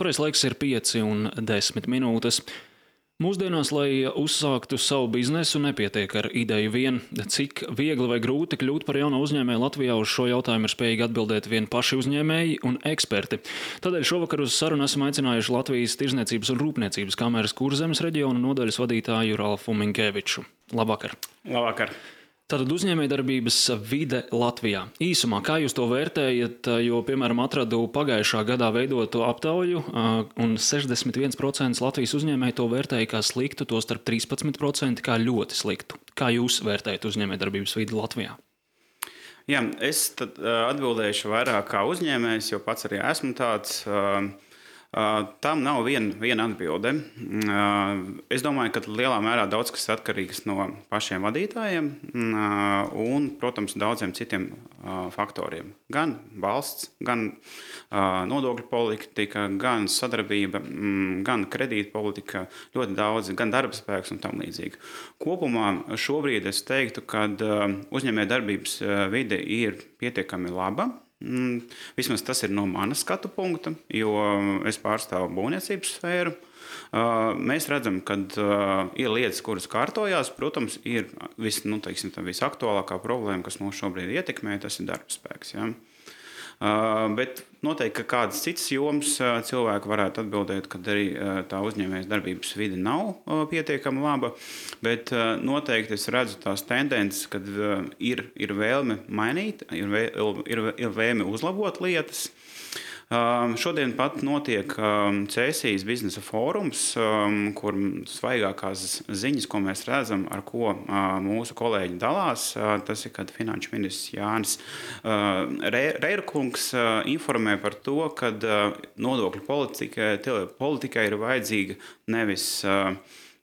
Pareizais laiks ir 5 un 10 minūtes. Mūsdienās, lai uzsāktu savu biznesu, nepietiek ar ideju vien. Cik viegli vai grūti kļūt par jaunu uzņēmēju Latvijā, uz šo jautājumu ir spējīgi atbildēt vien paši uzņēmēji un eksperti. Tādēļ šovakar uz sarunu esam aicinājuši Latvijas Tirzniecības un Rūpniecības kameras Kurzemes reģiona nodaļas vadītāju Ralfu Minkeviču. Labvakar! Labvakar! Tātad uzņēmējdarbības vide Latvijā. Īsumā, kā jūs to vērtējat, jo, piemēram, atradu pagājušā gadā veidotu aptauju, un 61% Latvijas uzņēmēji to vērtēja kā sliktu, tostarp 13% kā ļoti sliktu. Kā jūs vērtējat uzņēmējdarbības vidi Latvijā? Jā, es tad atbildēšu vairāk kā uzņēmējs, jo pats arī esmu tāds. Tam nav viena atbilde. Es domāju, ka lielā mērā daudz kas atkarīgs no pašiem vadītājiem un, protams, daudziem citiem faktoriem. Gan valsts, gan nodokļu politika, gan sadarbība, gan kredīta politika, ļoti daudz, gan darba spēks un tam līdzīgi. Kopumā šobrīd es teiktu, ka uzņēmējdarbības vide ir pietiekami laba. Vismaz tas ir no manas skatu punkta, jo es pārstāvu būvniecības sfēru. Mēs redzam, ka ir lietas, kuras kārtojās. Protams, ir visaktuālākā problēma, kas mūs šobrīd ietekmē, tas ir darba spēks. Ja? Bet noteikti, ka kādas citas jomas cilvēki varētu atbildēt, ka arī tā uzņēmējas darbības vide nav pietiekami laba, bet noteikti es redzu tās tendences, kad ir vēlme mainīt, ir vēlme uzlabot lietas. Šodien pat notiek Cēsijas biznesa fórums, kur svaigākās ziņas, ko mēs redzam, ar ko mūsu kolēģi dalās. Tas ir, kad finanšu ministrs Jānis Reirkungs informē par to, ka nodokļu politikai ir vajadzīga nevis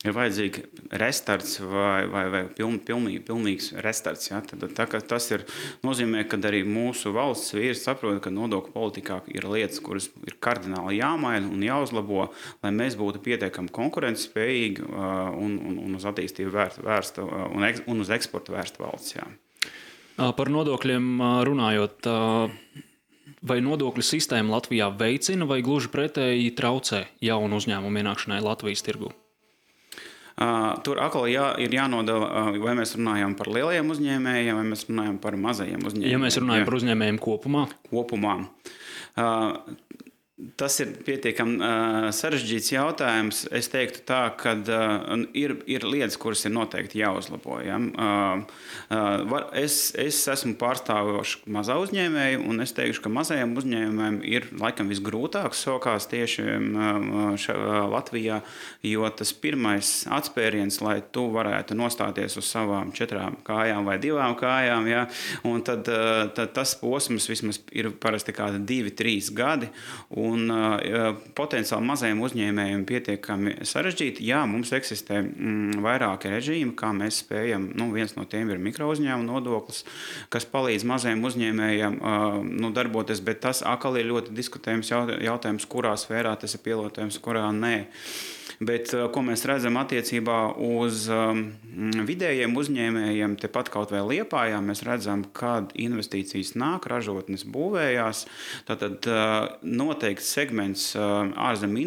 ir vajadzīga restarts vai pilnīgs restarts. Ja? Tad, tas nozīmē, ka arī mūsu valsts vīri saprot, ka nodokļu politikā ir lietas, kuras ir kardināli jāmaina un jāuzlabo, lai mēs būtu pietiekami konkurencespējīgi un uz attīstību vērsta un uz eksportu vērsta valsts. Jā. Par nodokļiem runājot, vai nodokļu sistēma Latvijā veicina vai gluži pretēji traucē jaunu uzņēmumu ienākšanai Latvijas tirgū? Tur atkal ir jānodala, vai mēs runājam par lielajiem uzņēmējiem, vai mēs runājam par mazajiem uzņēmējiem. Ja mēs runājam par uzņēmējiem kopumā? Kopumā. Tas ir pietiekami sarežģīts jautājums. Es teiktu tā, ka ir lietas, kuras ir noteikti jāuzlabo. Ja? Es esmu pārstāvošs mazā uzņēmēju, un es teikšu, ka mazajiem uzņēmējiem ir laikam visgrūtāk sokās tieši Latvijā, jo tas pirmais atspēriens, lai tu varētu nostāties uz savām 4 kājām vai 2 kājām, ja? Un tad tas posms vismaz ir parasti kādi 2-3 gadi, un potenciāli mazajiem uzņēmējiem pietiekami sarežģīti. Jā, mums eksistē vairāki režīmi, kā mēs spējam. Viens no tiem ir mikrouzņēmuma nodoklis, kas palīdz mazajiem uzņēmējiem darboties, bet tas atkal ir ļoti diskutējums jautājums, kurā sfērā tas ir pielietojams, kurā nē. Bet, ko mēs redzam attiecībā uz vidējiem uzņēmējiem, tepat kaut vai Liepājā, mēs redzam, kad investīcijas nāk, ražotnes būvējās. Tātad noteikti segments ārzemju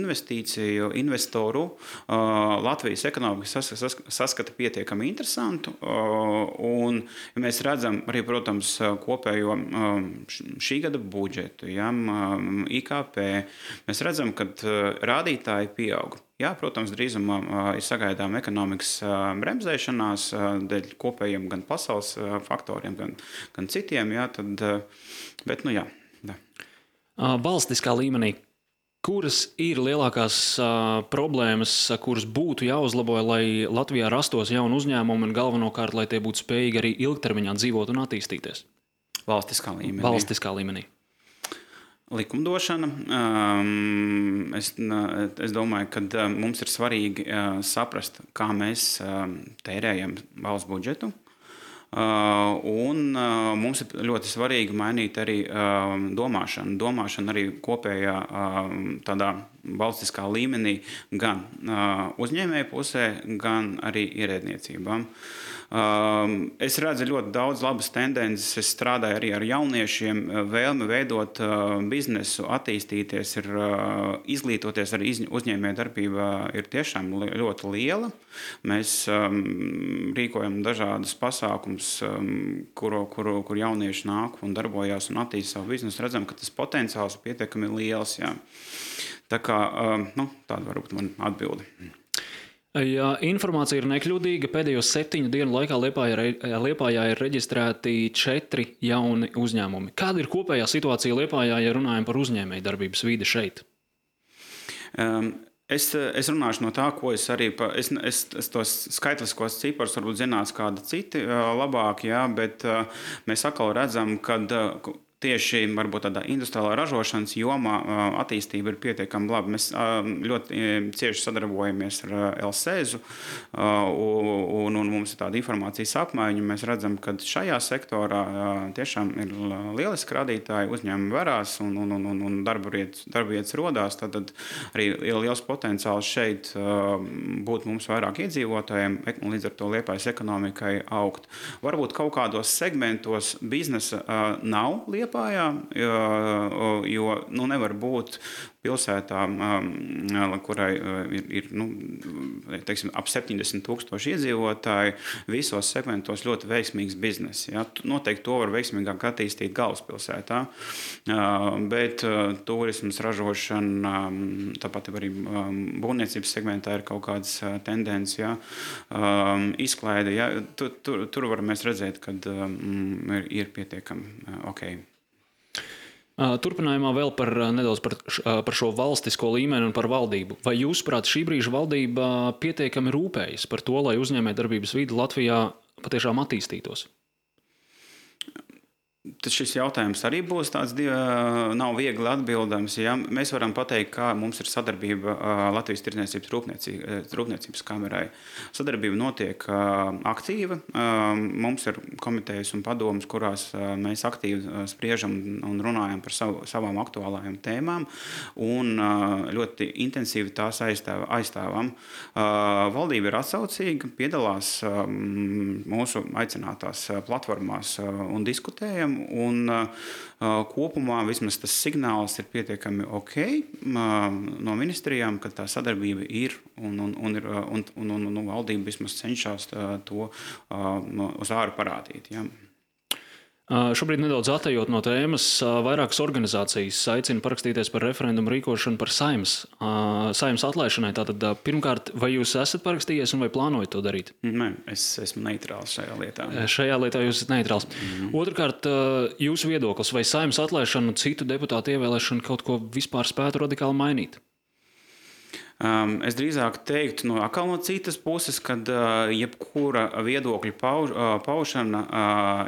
investoru Latvijas ekonomika saskata pietiekami interesantu. Un ja mēs redzam arī, protams, kopējo šī gada budžetu, ja, IKP, mēs redzam, ka rādītāji pieaug. Jā, protams, drīzumā ir sagaidām ekonomikas bremzēšanās dēļ kopējiem gan pasaules faktoriem, gan citiem. Jā, bet, jā. Valstiskā līmenī, kuras ir lielākās problēmas, kuras būtu jāuzlabo, lai Latvijā rastos jauni uzņēmumi un galvenokārt, lai tie būtu spējīgi arī ilgtermiņā dzīvot un attīstīties? Valstiskā līmenī. Likumdošana. Es domāju, ka mums ir svarīgi saprast, kā mēs tērējam valsts budžetu. Un mums ir ļoti svarīgi mainīt arī domāšanu. Domāšana arī kopējā tādā valstiskā līmenī gan uzņēmēju pusē, gan arī ierēdniecībām. Es redzu ļoti daudz labas tendences. Es strādāju arī ar jauniešiem. Vēlme veidot biznesu, attīstīties, izglītoties arī uzņēmējdarbībā ir tiešām ļoti liela. Mēs rīkojam dažādas pasākumus, kur jaunieši nāk un darbojās un attīsta savu biznesu. Redzam, ka tas potenciāls ir pietiekami liels. Jā. Tā kā tāda varbūt man atbilde. Ja informācija ir nekļūdīga, pēdējo 7 dienu laikā Liepājā ir reģistrēti 4 jauni uzņēmumi. Kāda ir kopējā situācija Liepājā, ja runājam par uzņēmējdarbības vidi šeit? Es runāšu no tā, ko es arī es tos skaitliskos ciparus varbūt zinās kādi citi labāk, jā, bet mēs atkal redzam, ka tieši varbūt tādā industriālā ražošanas jomā attīstība ir pietiekami laba. Mēs ļoti cieši sadarbojamies ar LSEZu un mums ir tāda informācijas apmaiņa. Mēs redzam, ka šajā sektorā tiešām ir lieliski rādītāji, uzņēmumi varās un darba vietas rodās. Tad arī ir liels potenciāls šeit būt mums vairāk iedzīvotājiem un līdz ar to Liepājas ekonomikai augt. Varbūt kaut kādos segmentos biznesa nav Liepājā, jo nevar būt pilsētā, kurai ir teiksim, ap 70,000 iedzīvotāji, visos segmentos ļoti veiksmīgs bizness. Ja? Noteikti to var veiksmīgāk attīstīt galvaspilsētā, bet turismas, ražošana, tāpat arī būvniecības segmentā ir kaut kādas tendences, ja? Izklaide. Ja? Tur var mēs redzēt, ka ir pietiekami ok. Turpinājumā vēl nedaudz par šo valstisko līmeni un par valdību. Vai jūsuprāt šī brīža valdība pietiekami rūpējas par to, lai uzņēmējdarbības vide Latvijā patiešām attīstītos? Tad šis jautājums arī būs tāds nav viegli atbildams. Ja? Mēs varam pateikt, kā mums ir sadarbība Latvijas Tirdzniecības Rūpniecības kamerai. Sadarbība notiek aktīva. Mums ir komitejas un padomas, kurās mēs aktīvi spriežam un runājam par savām aktuālajām tēmām un ļoti intensīvi tās aizstāvam. Valdība ir atsaucīga, piedalās mūsu aicinātās platformās un diskutējam. Un kopumā vismaz tas signāls ir pietiekami ok no ministrijām, ka tā sadarbība ir un valdība vismaz cenšas to uz āru parādīt. Ja. Šobrīd nedaudz atejot no tēmas, vairākas organizācijas aicina parakstīties par referendumu rīkošanu par saeimas atlaišanai. Tātad, pirmkārt, vai jūs esat parakstījies un vai plānojat to darīt? Nē, es esmu neitrāls šajā lietā. Šajā lietā jūs esat neitrāls. Otrkārt, jūsu viedoklis, vai saeimas atlaišana un citu deputātu ievēlēšana kaut ko vispār spētu radikāli mainīt? Es drīzāk teiktu no citas puses, ka jebkura viedokļa paušana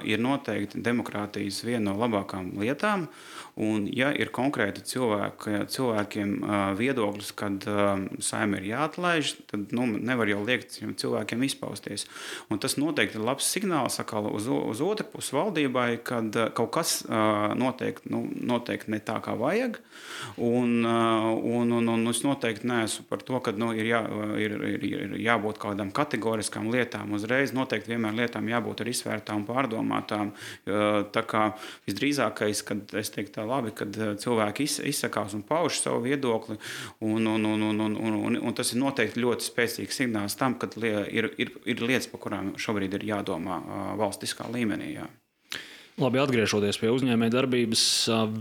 ir noteikti demokrātijas viena no labākām lietām. Un, ja ir konkrēti cilvēkiem viedoklis, kad saima ir jāatlaiž, tad nevar jau liekt cilvēkiem izpausties. Un tas noteikti ir labs signāls uz otru pusi valdībai, kad kaut kas noteikti ne tā, kā vajag. Un es noteikti neesmu par to, ka ir jābūt kādām kategoriskām lietām uzreiz. Noteikti vienmēr lietām jābūt arī izvērtām, pārdomātām. Tā kā visdrīzākais, kad es teiktu labi, kad cilvēki izsakās un pauž savu viedokli, un tas ir noteikti ļoti spēcīgs signāls tam, ka ir lietas, par kurām šobrīd ir jādomā valstiskā līmenī. Jā. Labi, atgriežoties pie uzņēmējdarbības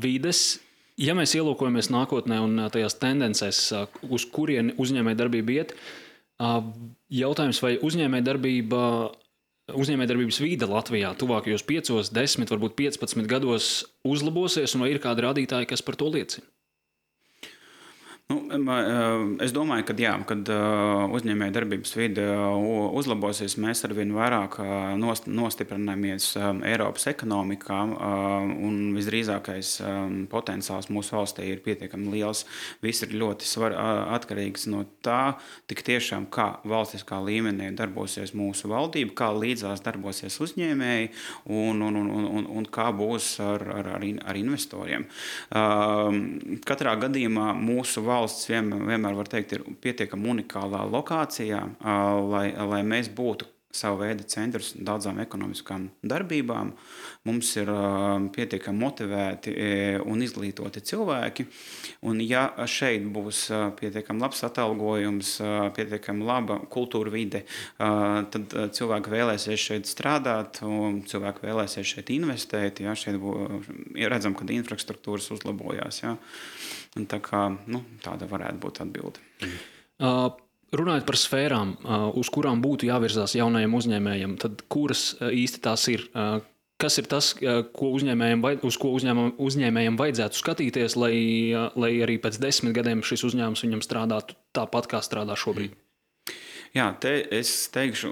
vides, ja mēs ielūkojamies nākotnē un tajās tendencēs, uz kurieni uzņēmējdarbība iet, jautājums, vai uzņēmējdarbības vide Latvijā tuvākajos 5, 10, varbūt 15 gados uzlabosies, un vai ir kādi rādītāji, kas par to liecina? Es domāju, ka jā, kad uzņēmējdarbības vide uzlabosies, mēs arvien vairāk nostiprināmies Eiropas ekonomikā, un visdrīzākais potenciāls mūsu valstī ir pietiekami liels. Viss ir ļoti atkarīgs no tā, tik tiešām kā valstiskā līmenī darbosies mūsu valdība, kā līdzās darbosies uzņēmēji un kā būs ar investoriem. Katrā gadījumā mūsu valsts vienmēr var teikt, ir pietiekami unikālā lokācijā, lai mēs būtu savu veidu centrs daudzām ekonomiskām darbībām. Mums ir pietiekami motivēti un izglītoti cilvēki. Un ja šeit būs pietiekami labs atalgojums, pietiekami laba kultūra vide, tad cilvēki vēlēsies šeit strādāt, un cilvēki vēlēsies šeit investēt. Ja, šeit redzam, ka infrastruktūras uzlabojās. Ja. Un tā kā, tāda varētu būt atbilde. Runājot par sfērām, uz kurām būtu jāvirzās jaunajiem uzņēmējiem, tad kuras īsti tās ir? Kas ir tas, uz ko uzņēmējiem vajadzētu skatīties, lai arī pēc 10 gadiem šis uzņēmums viņam strādātu tāpat, kā strādā šobrīd? Jā, es teikšu,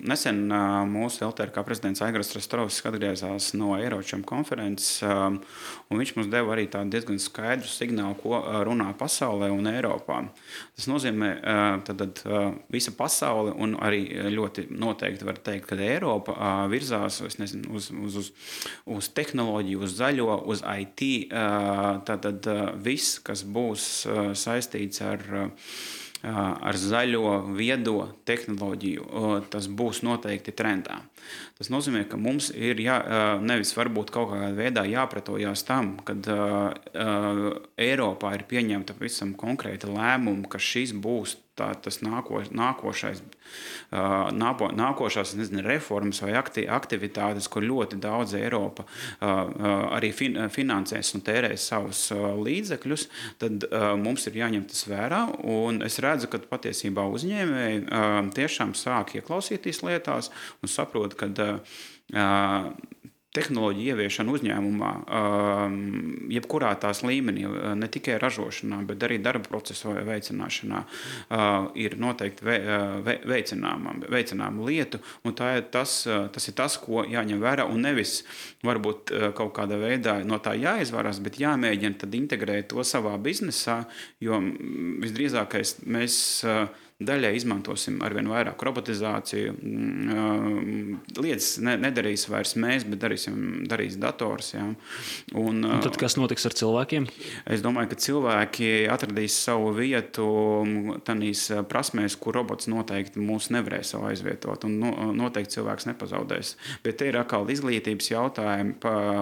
nesen mūsu LTRK prezidents Aigars Rostrovskis atgriezās no Eiročam konferences, un viņš mums deva arī tādu diezgan skaidru signālu, ko runā pasaulē un Eiropā. Tas nozīmē, tad visa pasaule, un arī ļoti noteikti var teikt, ka Eiropa virzās uz tehnoloģiju, uz zaļo, uz IT, tad viss, kas būs saistīts ar zaļo, viedo tehnoloģiju, tas būs noteikti trendā. Tas nozīmē, ka mums ir nevis varbūt kaut kādā veidā jāpretojās tam, kad Eiropā ir pieņemta visam konkrēta lēmuma, ka šis būs tas nākošās reformas vai aktivitātes, kur ļoti daudz Eiropa arī finansēs un tērēs savus līdzekļus, tad mums ir jāņem tas vērā. Un es redzu, ka patiesībā uzņēmēji tiešām sāk ieklausīties lietās un saprot, ka tehnoloģija ieviešana uzņēmumā, jebkurā tās līmenī, ne tikai ražošanā, bet arī darba procesu veicināšanā, ir noteikti veicināma lietu, un tas ir tas, ko jāņem vērā, un nevis varbūt kaut kādā veidā no tā jāizvarās, bet jāmēģina tad integrēt to savā biznesā, jo visdrīzākais mēs daļai izmantosim arvien vairāk robotizāciju. Lietas nedarīs vairs mēs, bet darīs dators. Ja. Un tad kas notiks ar cilvēkiem? Es domāju, ka cilvēki atradīs savu vietu tādīs prasmēs, kur robots noteikti mūs nevarēs aizvietot, un noteikti cilvēks nepazaudēs. Bet te ir atkal izglītības jautājumi,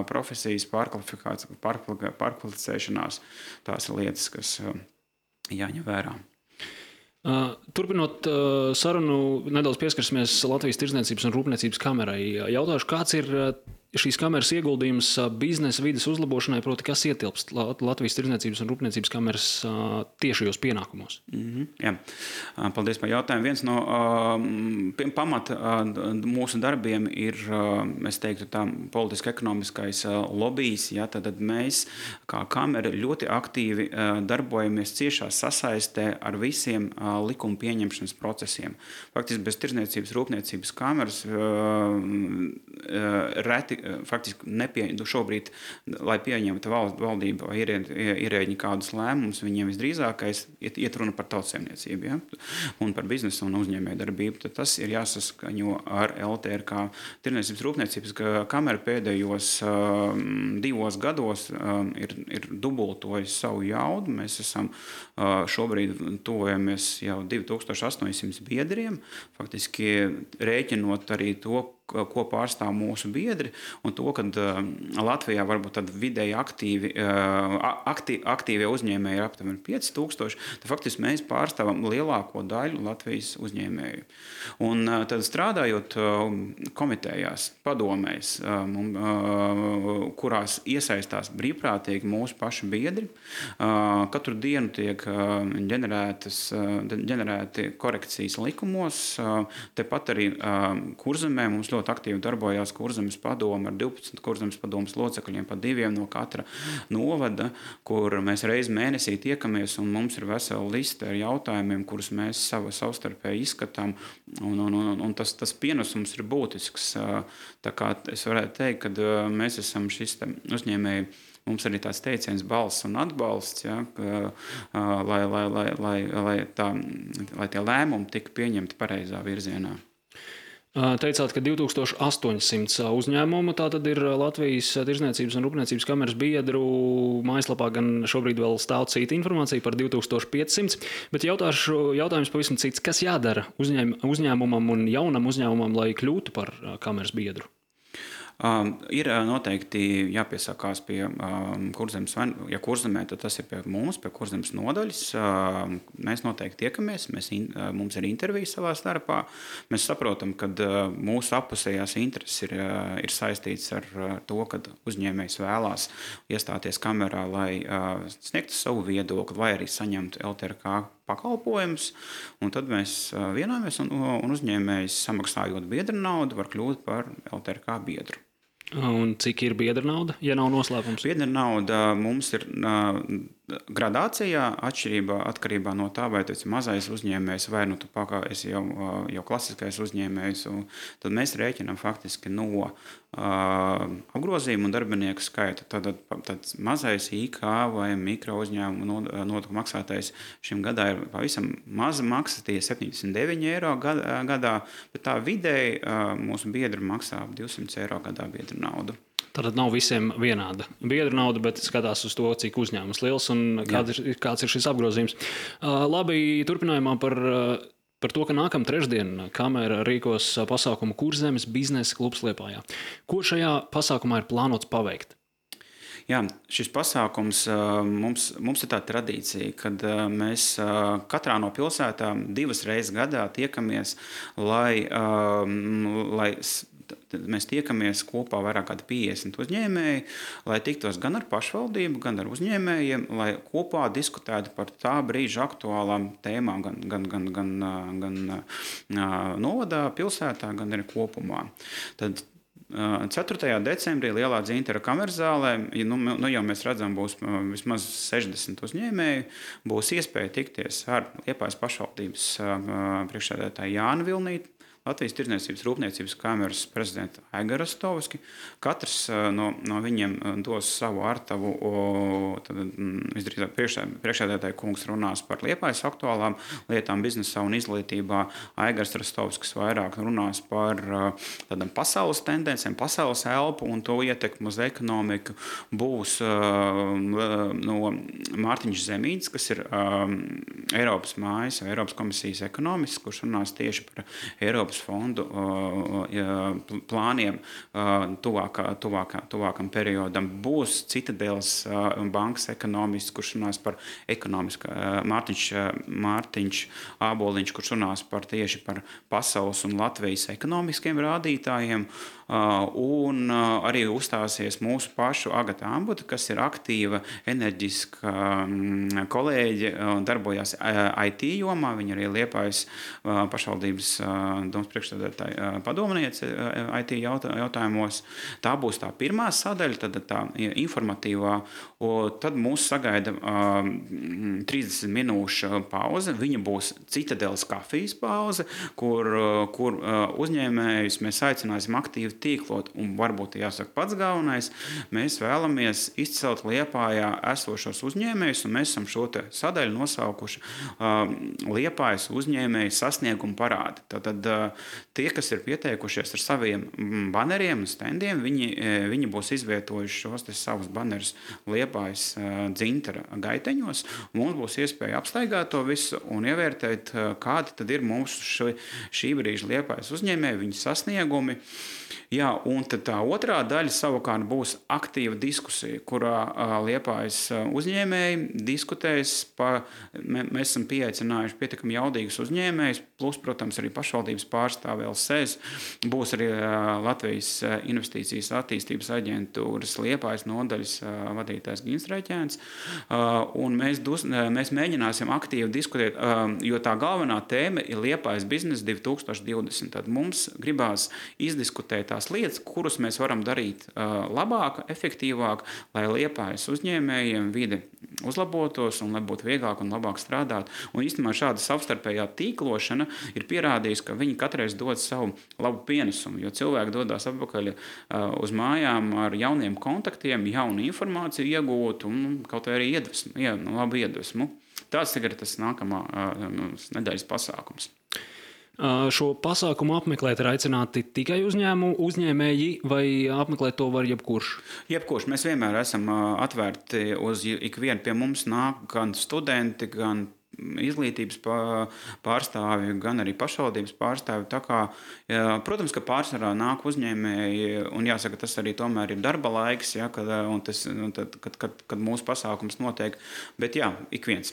profesijas pārkvalificēšanās. Tās ir lietas, kas jāņem vērā. Turpinot sarunu, nedaudz pieskarsimies Latvijas Tirdzniecības un Rūpniecības kamerai. Jautāšu, kāds ir šīs kameras ieguldījums biznesa vides uzlabošanai, proti, kas ietilpst Latvijas Tirdzniecības un Rūpniecības kameras tiešajos pienākumos? Jā. Paldies par jautājumu. Viens no pamata mūsu darbiem ir, es teiktu, tā politiski-ekonomiskais lobijs. Ja, tad mēs, kā kamera, ļoti aktīvi darbojamies ciešā sasaistē ar visiem likuma pieņemšanas procesiem. Faktiski bez Tirdzniecības Rūpniecības kameras reti faktiski šobrīd, lai pieņemtu valdība vai ierēģi kādus lēmumus, viņiem visdrīzākais iet runa par tautsaimniecību, ja? Un par biznesu un uzņēmēju darbību. Tad tas ir jāsaskaņo ar LTRK. Tirdzniecības Rūpniecības kamera pēdējos 2 gados ir dubultojis savu jaudu. Mēs esam šobrīd tuvojamies jau 2800 biedriem, faktiski rēķinot arī to, ko pārstāv mūsu biedri, un to, ka Latvijā varbūt tad vidēji aktīvie uzņēmēji ir aptuveni 5000, tad faktiski mēs pārstāvam lielāko daļu Latvijas uzņēmēju. Un tad strādājot komitejās, padomēs, kurās iesaistās brīvprātīgi mūsu paši biedri, katru dienu tiek ģenerēti korekcijas likumos, tepat arī Kurzemē mums ļoti aktīvi darbojās Kurzemes padome ar 12 Kurzemes padomes locekļiem, pa 2 no katra novada, kur mēs reizi mēnesī tiekamies, un mums ir vesela liste ar jautājumiem, kurus mēs savstarpēji izskatām, un tas pienesums ir būtisks. Tā kā es varētu teikt, ka mēs esam šis uzņēmēji, mums arī tāds teiciens balss un atbalsts, ja, lai tie lēmumi tika pieņemti pareizā virzienā. Teicāt, ka 2800 uzņēmumu tātad ir Latvijas Tirdzniecības un Rūpniecības kameras biedru mājaslapā, gan šobrīd vēl stāv cita informācija par 2500, bet jautājums pavisam cits. Kas jādara uzņēmumam un jaunam uzņēmumam, lai kļūtu par kameras biedru? Ir noteikti jāpiesakās pie Kurzemes, ja Kurzemē, tad tas ir pie mums, pie Kurzemes nodaļas. Mēs noteikti tiekamies, mums ir intervija savā starpā. Mēs saprotam, ka mūsu appusējās intereses ir saistītas ar to, ka uzņēmējs vēlās iestāties kamerā, lai sniegtu savu viedokli vai arī saņemtu LTRK pakalpojumus, un tad mēs vienojamies, un uzņēmējs samaksājot biedra naudu var kļūt par LTRK biedru. Un cik ir biedra nauda, ja nav noslēpums? Biedra nauda mums ir gradācijā atkarībā no tā, vai tas ir mazais uzņēmējs vai nu tu esi jau klasiskais uzņēmējs. Tad mēs rēķinām faktiski no apgrozījuma un darbinieku skaita. Tad mazais IK vai mikro uzņēmumu nodokļu maksātais šim gadā ir pavisam maza maksa, tie 79 eiro gadā, bet tā vidēji mūsu biedri maksā 200 eiro gadā biedra naudu. Tātad nav visiem vienāda biedra nauda, bet skatās uz to, cik uzņēmums liels un kāds ir šis apgrozījums. Labi, turpinājumā par to, ka nākamā trešdiena kamera rīkos pasākumu Kurzemes biznesa klubs Liepājā. Ko šajā pasākumā ir plānots paveikt? Jā, šis pasākums mums ir tā tradīcija, kad mēs katrā no pilsētām 2 reizes gadā tiekamies, lai mēs tiekamies kopā vairāk kā 50 uzņēmēji, lai tiktos gan ar pašvaldību, gan ar uzņēmējiem, lai kopā diskutētu par tā brīža aktuālām tēmām, gan novadā, pilsētā, gan arī kopumā. Tad 4. decembrī Lielā Dzintara kameras zālē, jau mēs redzam, būs vismaz 60 uzņēmēji, būs iespēja tikties ar Liepājas pašvaldības priekšsēdētāju Jānu Vilnīti, Latvijas Tirdzniecības Rūpniecības kameras prezidentu Aigaru Rastovski. Katrs no viņiem dos savu artavu. Visdrīzāk priekšsēdētāja kungs runās par Liepājas aktuālām lietām biznesā un izglītībā. Aigars Rastovskis vairāk runās par tādām pasaules tendencēm, pasaules elpu un to ietekmu uz ekonomiku. Būs no Mārtiņš Zemītis, kas ir Eiropas mājas, Eiropas komisijas ekonomists, kurš runās tieši par Eiropas fondu plāniem tuvākam periodam. Būs Citadeles bankas ekonomists, kurš runās par Mārtiņš Āboliņš, kurš runās tieši par pasaules un Latvijas ekonomiskiem rādītājiem. Un arī uzstāsies mūsu pašu Agata Ambuta, kas ir aktīva, enerģiska kolēģe, darbojās IT jomā. Viņa arī Liepājas pašvaldības domas priekšsēdētāja padomniece IT jautājumos. Tā būs tā pirmā sadaļa, tad tā informatīvā. Tad mūs sagaida 30 minūšu pauze. Viņa būs Citadeles kafijas pauze, kur uzņēmējus mēs aicināsim aktīvi tīklot. Un varbūt jāsaka pats galvenais, mēs vēlamies izcelt Liepājā esošos uzņēmējus, un mēs esam šo te sadaļu nosaukuši Liepājas uzņēmēju sasniegumu parādi. Tātad tie, kas ir pieteikušies ar saviem baneriem un standiem, viņi būs izvietojuši šos te savus banerus Liepājas Dzintara gaiteņos. Mums būs iespēja apstaigāt to visu un ievērtēt, kādi tad ir mūsu šī brīža Liepājas uzņēmēji, viņu sasniegumi. Jā, un tad tā otrā daļa savukārt būs aktīva diskusija, kurā Liepājas uzņēmēji diskutēs mēs esam pieaicinājuši pietiekami jaudīgus uzņēmējus, plus, protams, arī pašvaldības pārstāvi LSES, būs arī Latvijas investīcijas attīstības aģentūras Liepājas nodaļas vadītājs Gins Reķēns, un mēs mēģināsim aktīvi diskutēt, jo tā galvenā tēma ir Liepājas biznesa 2020. Tad mums gribās izdiskutēt tās lietas, kuras mēs varam darīt labāk, efektīvāk, lai Liepājas uzņēmējiem vide uzlabotos un lai būtu vieglāk un labāk strādāt. Un īstenībā šāda savstarpējā tīklošana ir pierādījusi, ka viņi katreiz dod savu labu pienesumu, jo cilvēki dodās atpakaļ uz mājām ar jauniem kontaktiem, jaunu informāciju iegūt un kaut vai arī labu iedvesmu. Tāds tagad ir tas nākamā nedēļas pasākums. Šo pasākumu apmeklēt ir aicināti tikai uzņēmēji, vai apmeklēt to var jebkurš? Jebkurš. Mēs vienmēr esam atvērti uz ikvienu. Pie mums nāk gan studenti, gan izglītības pārstāvji, gan arī pašvaldības pārstāvji. Tā kā, protams, ka pārsvarā nāk uzņēmēji, un jāsaka, tas arī tomēr ir darba laiks, ja, kad mūsu pasākums notiek. Bet jā, ik viens.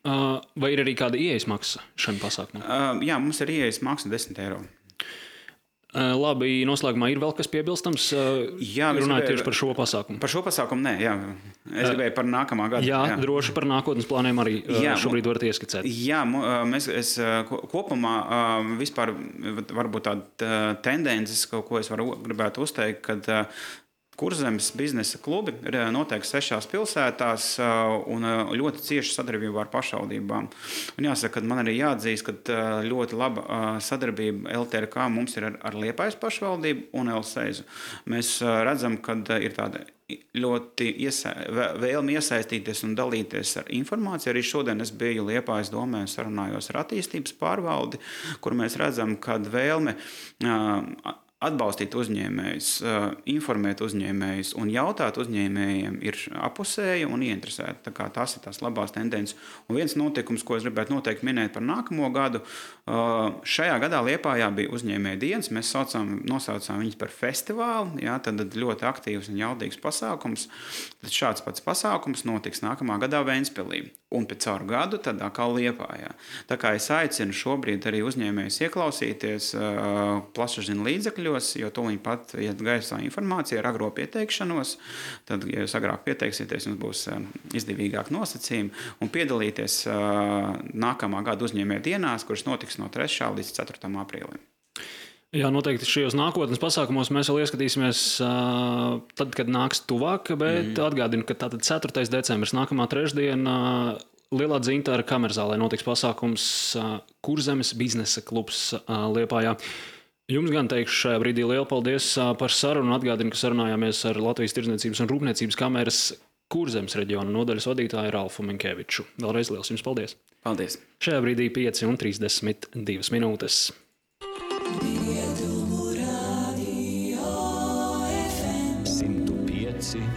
Vai ir arī kāda ieejas maksa šim pasākumam? Jā, mums ir ieejas maksa 10 eiro. Labi, noslēgumā ir vēl kas piebilstams? Jā, runājot tieši par šo pasākumu. Par šo pasākumu nē, jā. Es gribēju par nākamā gada. Jā, droši par nākotnes plāniem arī šobrīd varat ieskicēt. Jā, es kopumā vispār varbūt tāda tendences, ko es gribētu uzteikt, kad Kurzemes biznesa klubi notiek 6 pilsētās un ļoti cieši sadarbībā ar pašvaldībām. Un jāsaka, ka man arī jāatzīst, ka ļoti laba sadarbība LTRK mums ir ar Liepājas pašvaldību un Elseizu. Mēs redzam, ka ir tāda ļoti vēlme iesaistīties un dalīties ar informāciju. Arī šodien es biju Liepājas domē un sarunājos ar attīstības pārvaldi, kur mēs redzam, ka vēlme atbalstīt uzņēmējus, informēt uzņēmējus un jautāt uzņēmējiem ir apusēja un ieinteresēta. Tā kā tās ir tās labās tendences. Un viens notikums, ko es gribētu noteikti minēt par nākamo gadu, šajā gadā Liepājā bija uzņēmēja dienas. Mēs nosaucām viņus par festivālu, jā, tad ļoti aktīvs un jaudīgs pasākums. Tad šāds pats pasākums notiks nākamā gadā Ventspilī. Un pēc caur gadu tad atkal Liepājā. Tā kā es aicinu šobrīd arī uzņēmējus ieklausīties plašsaziņas līdzekļos, jo tūlīt pat iet gaisā informācija ar agro pieteikšanos. Tad, ja jūs agrāk pieteiksieties, jums būs izdevīgāk nosacījumi un piedalīties nākamā gada uzņēmēju dienās, kuras notiks no 3. līdz 4. aprīlim. Jā, noteikti šajos nākotnes pasākumos mēs vēl ieskatīsimies tad, kad nāks tuvāk, bet atgādinu, ka tātad 4. decembris, nākamā trešdiena, Lielā Dzintara kamerzālē notiks pasākums Kurzemes biznesa klubs Liepājā. Jums gan teikšu šajā brīdī lielu paldies par sarunu un atgādinu, ka sarunājāmies ar Latvijas Tirdzniecības un Rūpniecības kameras Kurzemes reģiona nodaļas vadītāju Ralfu Minkeviču. Vēlreiz liels jums paldies! Paldies! Šajā brīdī 5:32 minūtes.